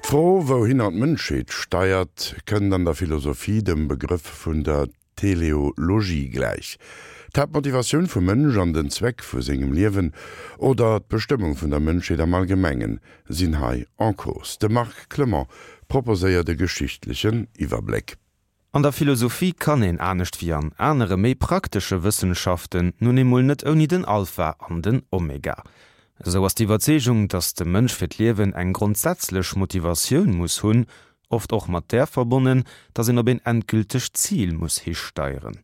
D'Fro, wouhinner d'Mënschheet steiert, kënnt an der Philosophie dem Begrëff vun der Teleologie gläich. D'Haaptmotivatioun vum Mënsch an den Zweck vu sengem Liewen oder d'Bestëmmung vun der Mënschheet am Allgemengen sinn hei en cause. De Marc Clement proposéiert e geschichtlechen Iwwerbléck. An der Philosophie kann een, anescht wéi an anere méi praktesche Wëssenschaften, nun eemol net ouni den Alpha an den Omega. Esou ass d'Iwwerzeegung, datt de Mënsch fir d'Liewen eng grondsätzlech Motivatioun muss hunn, oft och mat där verbonnen, datt een op een endgültegt Zil muss histeieren.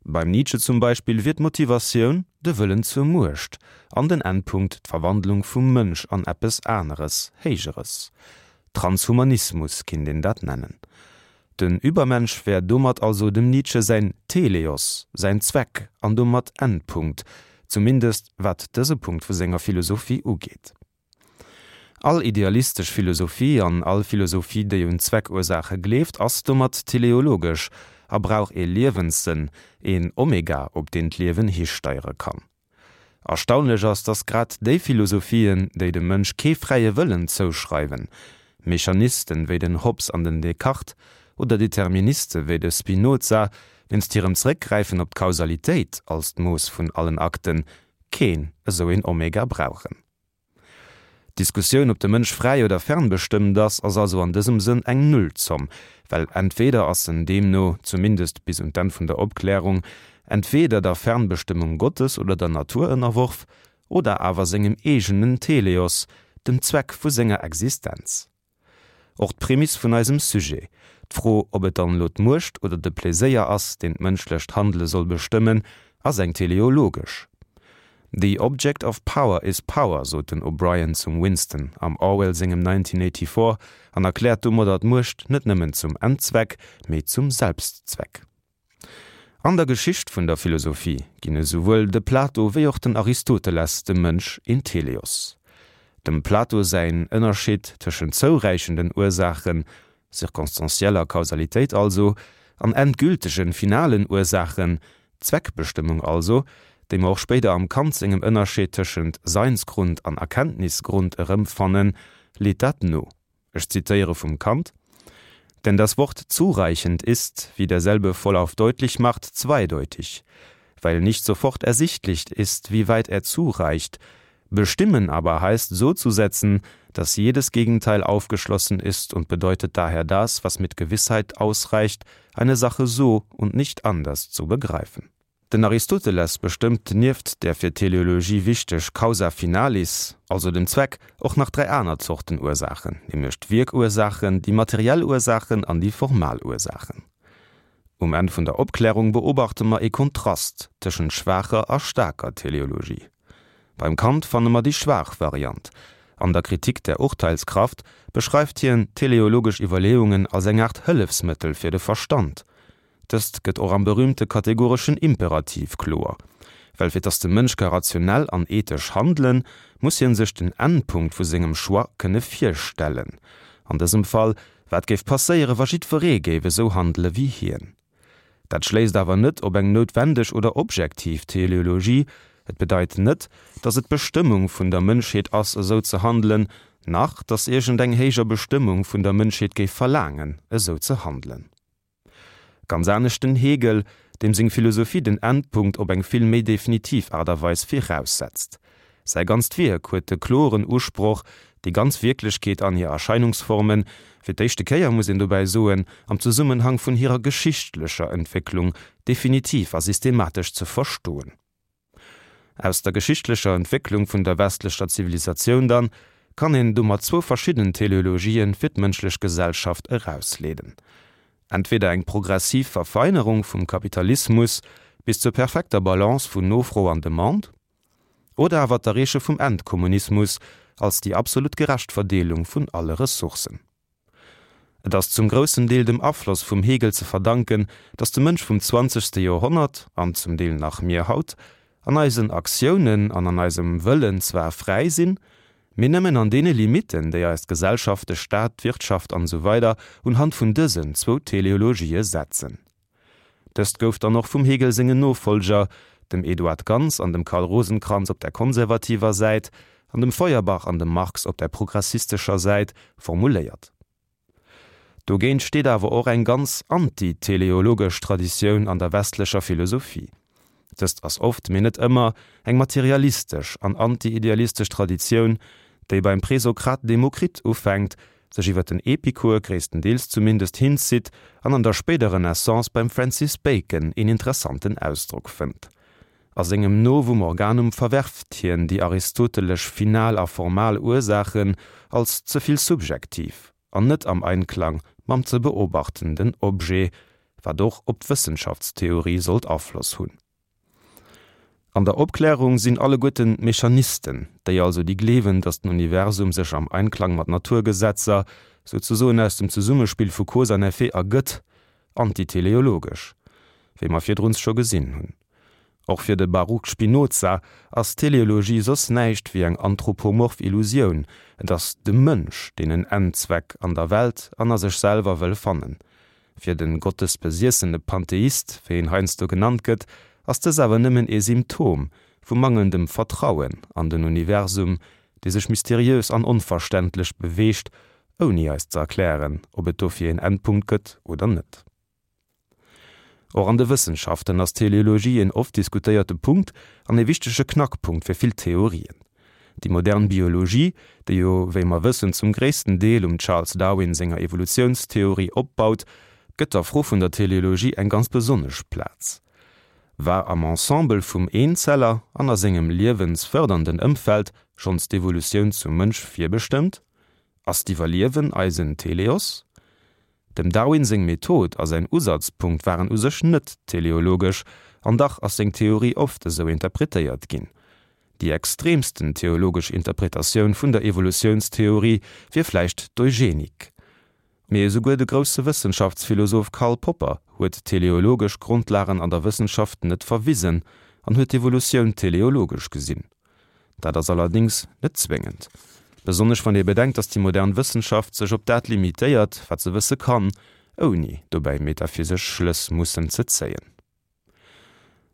Beim Nietzsche zum Beispill wier d'Motivatioun de Wëllen zur Muecht an den Endpunkt d'Verwandlung vum Mënsch an eppes Aneres, Héijeres. Transhumanismus kinnt een dat nennen. Den Übermensch wär domat also dem Nietzsche säin Teleos, säin Zweck an domat Endpunkt, zumindest wat dëse Punkt vu senger Philosophie ugeet. All idealistesch Philosophie an all Philosophie, déi un Zweckursaache gleeft, ass domat teleologesch a brauch ee Liewenssënn, een Omega, op deen d'Liewen histeiere kann. Erstaunlech ass, datt grad déi Philosophien, déi dem Mënsch kee fräie Wëllen zouschreiwen, Mechanisten wéi den Hobbes an den Descartes oder Deterministe wéi de Spinoza, wéinst hirem Zeréckgräifen op d'Kausalitéit als d'Mooss vun allen Akten, keen esou een Omega brauchen. D'Diskussioun, ob de Mënsch fräi oder fernbestëmmt ass, ass also an dësem Sënn eng Nullzomm, well entweder ass en deemno, zumindest bis un d'Enn vun der Opklärung, entweder der Fernbestëmmung Gottes oder der Natur ënnerworf, oder awer sengem eegenen Teleos, dem Zweck vu senger Existenz. Och d'Prämiss vun eisem Sujet, d'Fro, ob et dann elo d'Muecht oder de Pleséier ass, deen d'mënschlecht Handele soll bestëmmen, ass eng teleologesch. The object of power is power, sot den O'Brien zum Winston am Orwell sengem 1984 an erkläert domadder d'Muecht net nëmmen zum Endzweck, mee zum Selbstzweck. An der Geschicht vun der Philosophie ginn esouwuel de Plato wéi och den Aristoteles dem Mënsch een Teleos. Dem Plato säin Ënnerscheed tëschent zouräichenden Ursaachen, circonstancieller Kausalitéit also, an endgültegen, finalen Ursaachen, Zweckbestëmmung also, déi mer och spéider am Kant sengem Ënnerscheed tëschent Seinsgrund an Erkenntnisgrund erëmfannen, leet dat no. Ech zitiere vum Kant: Denn das Wort zureichend ist, wie derselbe vollauf deutlich macht, zweideutig, weil nicht sofort ersichtlich ist, wie weit er zureicht. Bestimmen aber heißt so zu setzen, dass jedes Gegenteil aufgeschlossen ist und bedeutet daher das, was mit Gewissheit ausreicht, eine Sache so und nicht anders zu begreifen. Den Aristoteles bestëmmt nieft der fir d'Teleologie wichteg Causa finalis, also dem Zweck, och nach 3 aner Zorten Ursaachen, nämlech d'Wierkursaachen, déi materiell Ursaachen an déi formal Ursaachen. Um Enn vun der Opklärung beobachte mer ee Kontrast tëschent schwaacher a staarker Teleologie. Beim Kant fanne mer déi schwaach Variant. An der Kritik der Urteilskraft beschreift hien teleologesch Iwwerleeungen als eng Aart Hëllefsmëttel fir de Verstand. Dëst gëtt och am berühmte kategoreschen Imperativ kloer, well fir dass de Mënsch ka rationell an ethesch handelen, muss hien sech den Endpunkt vu sengem Choix kënne virstellen. An dësem Fall, wat géif passéiere wa jiddweree géif esou handele wéi hien? Dat schléisst awer net op eng noutwendeg oder objektiv Teleologie, et bedeit net, dass et d'Bestëmmung vun der Mënschheet ass esou ze handelen, nach dass iergend eng héijer Bestëmmung vun der Mënschheet géif verlaangen esou ze handelen. Ganz anescht den Hegel, deem seng Philosophie den Endpunkt op eng vill méi definitiv Aart a Weis viraussetzt. Säi ganzt Wierk huet de kloren Usproch, déi ganz Wierklechkeet an hir Erscheinungsformen, fir d'éischte Kéier muss een dobäi soen, am Zesummenhang vun hirer geschichtlecher Entwécklung, definitiv a systematesch ze verstoen. Aus der geschichtlecher Entwécklung vun der westlecher Zivilisatioun dann kann een domat zwou verschidden Teleologien fir d'mënschlech Gesellschaft erausleeden, entweder eng progressiv Verfeinerung vum Kapitalismus bis zur perfekter Balance vun Nofro an Demande, oder awer d'Erreeche vum Endkommunismus als déi absolut gerecht Verdeelung vun alle Ressourcen. Et ass zum groussen Deel dem Afloss vum Hegel ze verdanken, datt de Mënsch vum zwanzegste Joerhonnert, an zum Deel nach mir haut, an eisen Aktiounen an an eisem Wëllen zwar fräi sinn, mee nëmmen an deene Limitten, déi eis d'Gesellschaft, de Staat, d'Wirtschaft an esou weider unhand vun dësen zwou Teleologië setzen. Dëst gouf dann och vum Hegel sengen Nofollger, dem Eduard Gans an dem Karl Rosenkranz op der konservativer Säit. an dem Feuerbach an dem Marx op der progressistescher Säit, formuléiert. Dogéint steet awer och eng ganz anti-teleologesch Traditioun an der westlecher Philosophie. Dëst ass oft, mee net ëmmer, eng materialistesch an anti-idealistesch Traditioun, déi beim Presokrat Demokrit ufänkt, sech iwwer den Epikur, gréisstendeels zumindest, hinzitt an an der spéider Renaissance beim Francis Bacon een interessanten Ausdrock fënnt. A sengem Novum Organum verwerft hien déi aristotelesch final a formal Ursaachen als ze vill subjektiv an net am Einklang mam ze beobachtenden Objet, wat och op d'Wëssenschaftstheorie sollt Afloss hunn. An der Opklärung sinn alleguerten d'Mechanisten, déi also déi gleewen, datt den Universum sech am Einklang mat Naturgesetzer, souzesoen aus dem Zesummespill vu Cause an Effet ergëtt, antiteleologesch, wéi mer virdruns scho gesinn hunn. Och fir de Baruch Spinoza ass Teleologie soss näischt wéi eng anthropomorph Illusioun, et ass de Mënsch, deen en Endzweck an der Welt an a sech selwer wëll fannen. Fir de gottesbesiessene Pantheist, wéi en heiansdo genannt gëtt, ass dës awer nëmmen ee Symptom vu mangelndem Vertrauen an den Universum, dee sech mysteriös an onverständlech beweegt, ouni eis ze erklären, ob et dofir een Endpunkt gëtt oder net. Och an de Wëssenschaften ass d'Teleologie een oft diskutéierte Punkt an ee wichtege Knackpunkt fir vill Theorien. Déi modern Biologie, déi jo, wéi mer wëssen, zum gréissten Deel um Charles Darwin senger Evolutiounstheorie opbaut, gëtt der Fro vun der Teleologie eng ganz besonnesch Plaz. War am Ensemble vum Eenzeller an a sengem liewensfërdernden Ëmfeld schonns d'Evolutioun zum Mënsch virbestëmmt? Ass d'Iwwerliewen eisen Teleos? Dem Darwin seng Method a säin Usazpunkt waren u sech net teleologesch, an dach ass seng Theorie oft esou interpretéiert ginn. Déi extreemsten theologesch Interpretatioun vun der Evolutiounstheorie wier vläicht d'Eugenik. Mee esouguer de grousse Wëssenschaftsphilosoph Karl Popper huet teleologesch Grondlagen an der Wëssenschaft net verwisen an huet d'Evolutioun teleologesch gesinn. Dat ass allerdéngs net zwéngend, besonnesch wann ee bedenkt, datt déi modern Wëssenschaft sech op dat limitéiert, wat se wësse kann, ouni dobäi metaphysesch Schlëss mussen ze zéien.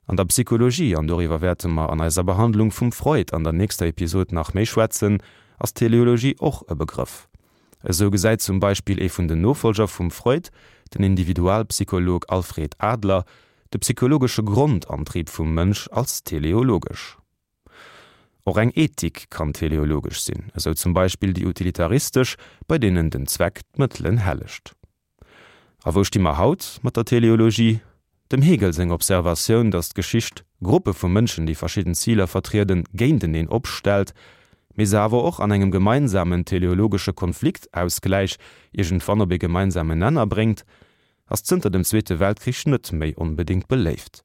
An der Psychologie, an doriwwer wäerte mer an eiser Behandlung vum Freud an der nächster Episod nach méi schwätzen, ass Teleologie och e Begrëff. Esou gesäit zum Beispill ee vun den Nofolger vum Freud, den Individualpsycholog Alfred Adler, de psychologesche Grondantrieb vum Mënsch als teleologesch. Och eng Ethik kann teleologesch sinn, esou zum Beispill déi utilitaristesch, bei deenen den Zweck d'Mëttelen hellegt. A wou sti mer haut mat der Teleologie? Dem Hegel seng Observatioun, datt d'Geschicht Gruppe vu Mënschen, déi verschidden Ziler vertrieden, géinteneen opstellt, mee se awer och an engem gemeinsamen teleologesche Konfliktausgläich iergendwann op ee gemeinsamen Nenner bréngt, ass zënter dem Zweete Weltkrich net méi onbedéngt beléift.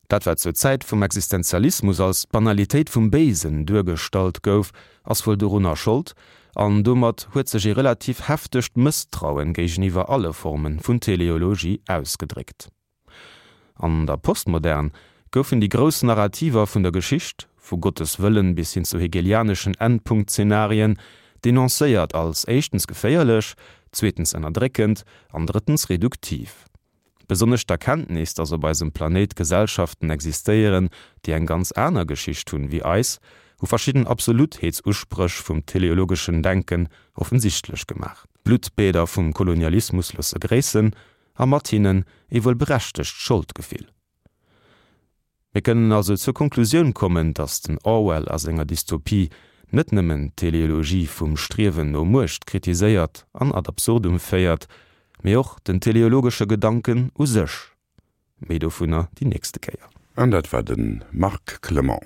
Dat wat zur Zäit vum Existenzialismus als d'Banalitéit vum Béisen duergestallt gouf, ass wuel dorunner Schold, an domat huet sech ee relativ heftegt Mësstrauen géigeniwwer alle Forme vun Teleologie ausgedréckt. An der Postmodern goufen déi grouss Narrativer vun der Geschicht, vu Gottes Wëllen bis hin zu hegelianeschen Endpunktzenarien, denoncéiert als éischtens geféierlech, zweetens ënnerdréckend an drëttens reduktiv. Besonnesch d'Erkenntnis, datt op eisem Planéit Gesellschaften existéieren, déi eng ganz aner Geschicht hunn wéi eis, hu verschidden Absolutheetsuspréch vum teleologeschen Denken offensichtlech gemaach. D'Bluttbäder vum Kolonialismus loosse gréissen, a mat hinnen ee wuel berechtegt Scholdgefill. Mir kënnen also zur Konklusioun kommen, datt den Orwell a senger Dystopie net nëmmen d'Teleologie vum Striewen no Muecht kritiséiert an ad absurdum féiert, mee och den teleologesche Gedanken u sech. Méi dovunner déi nächste Kéier. An dat war de Marc Clement.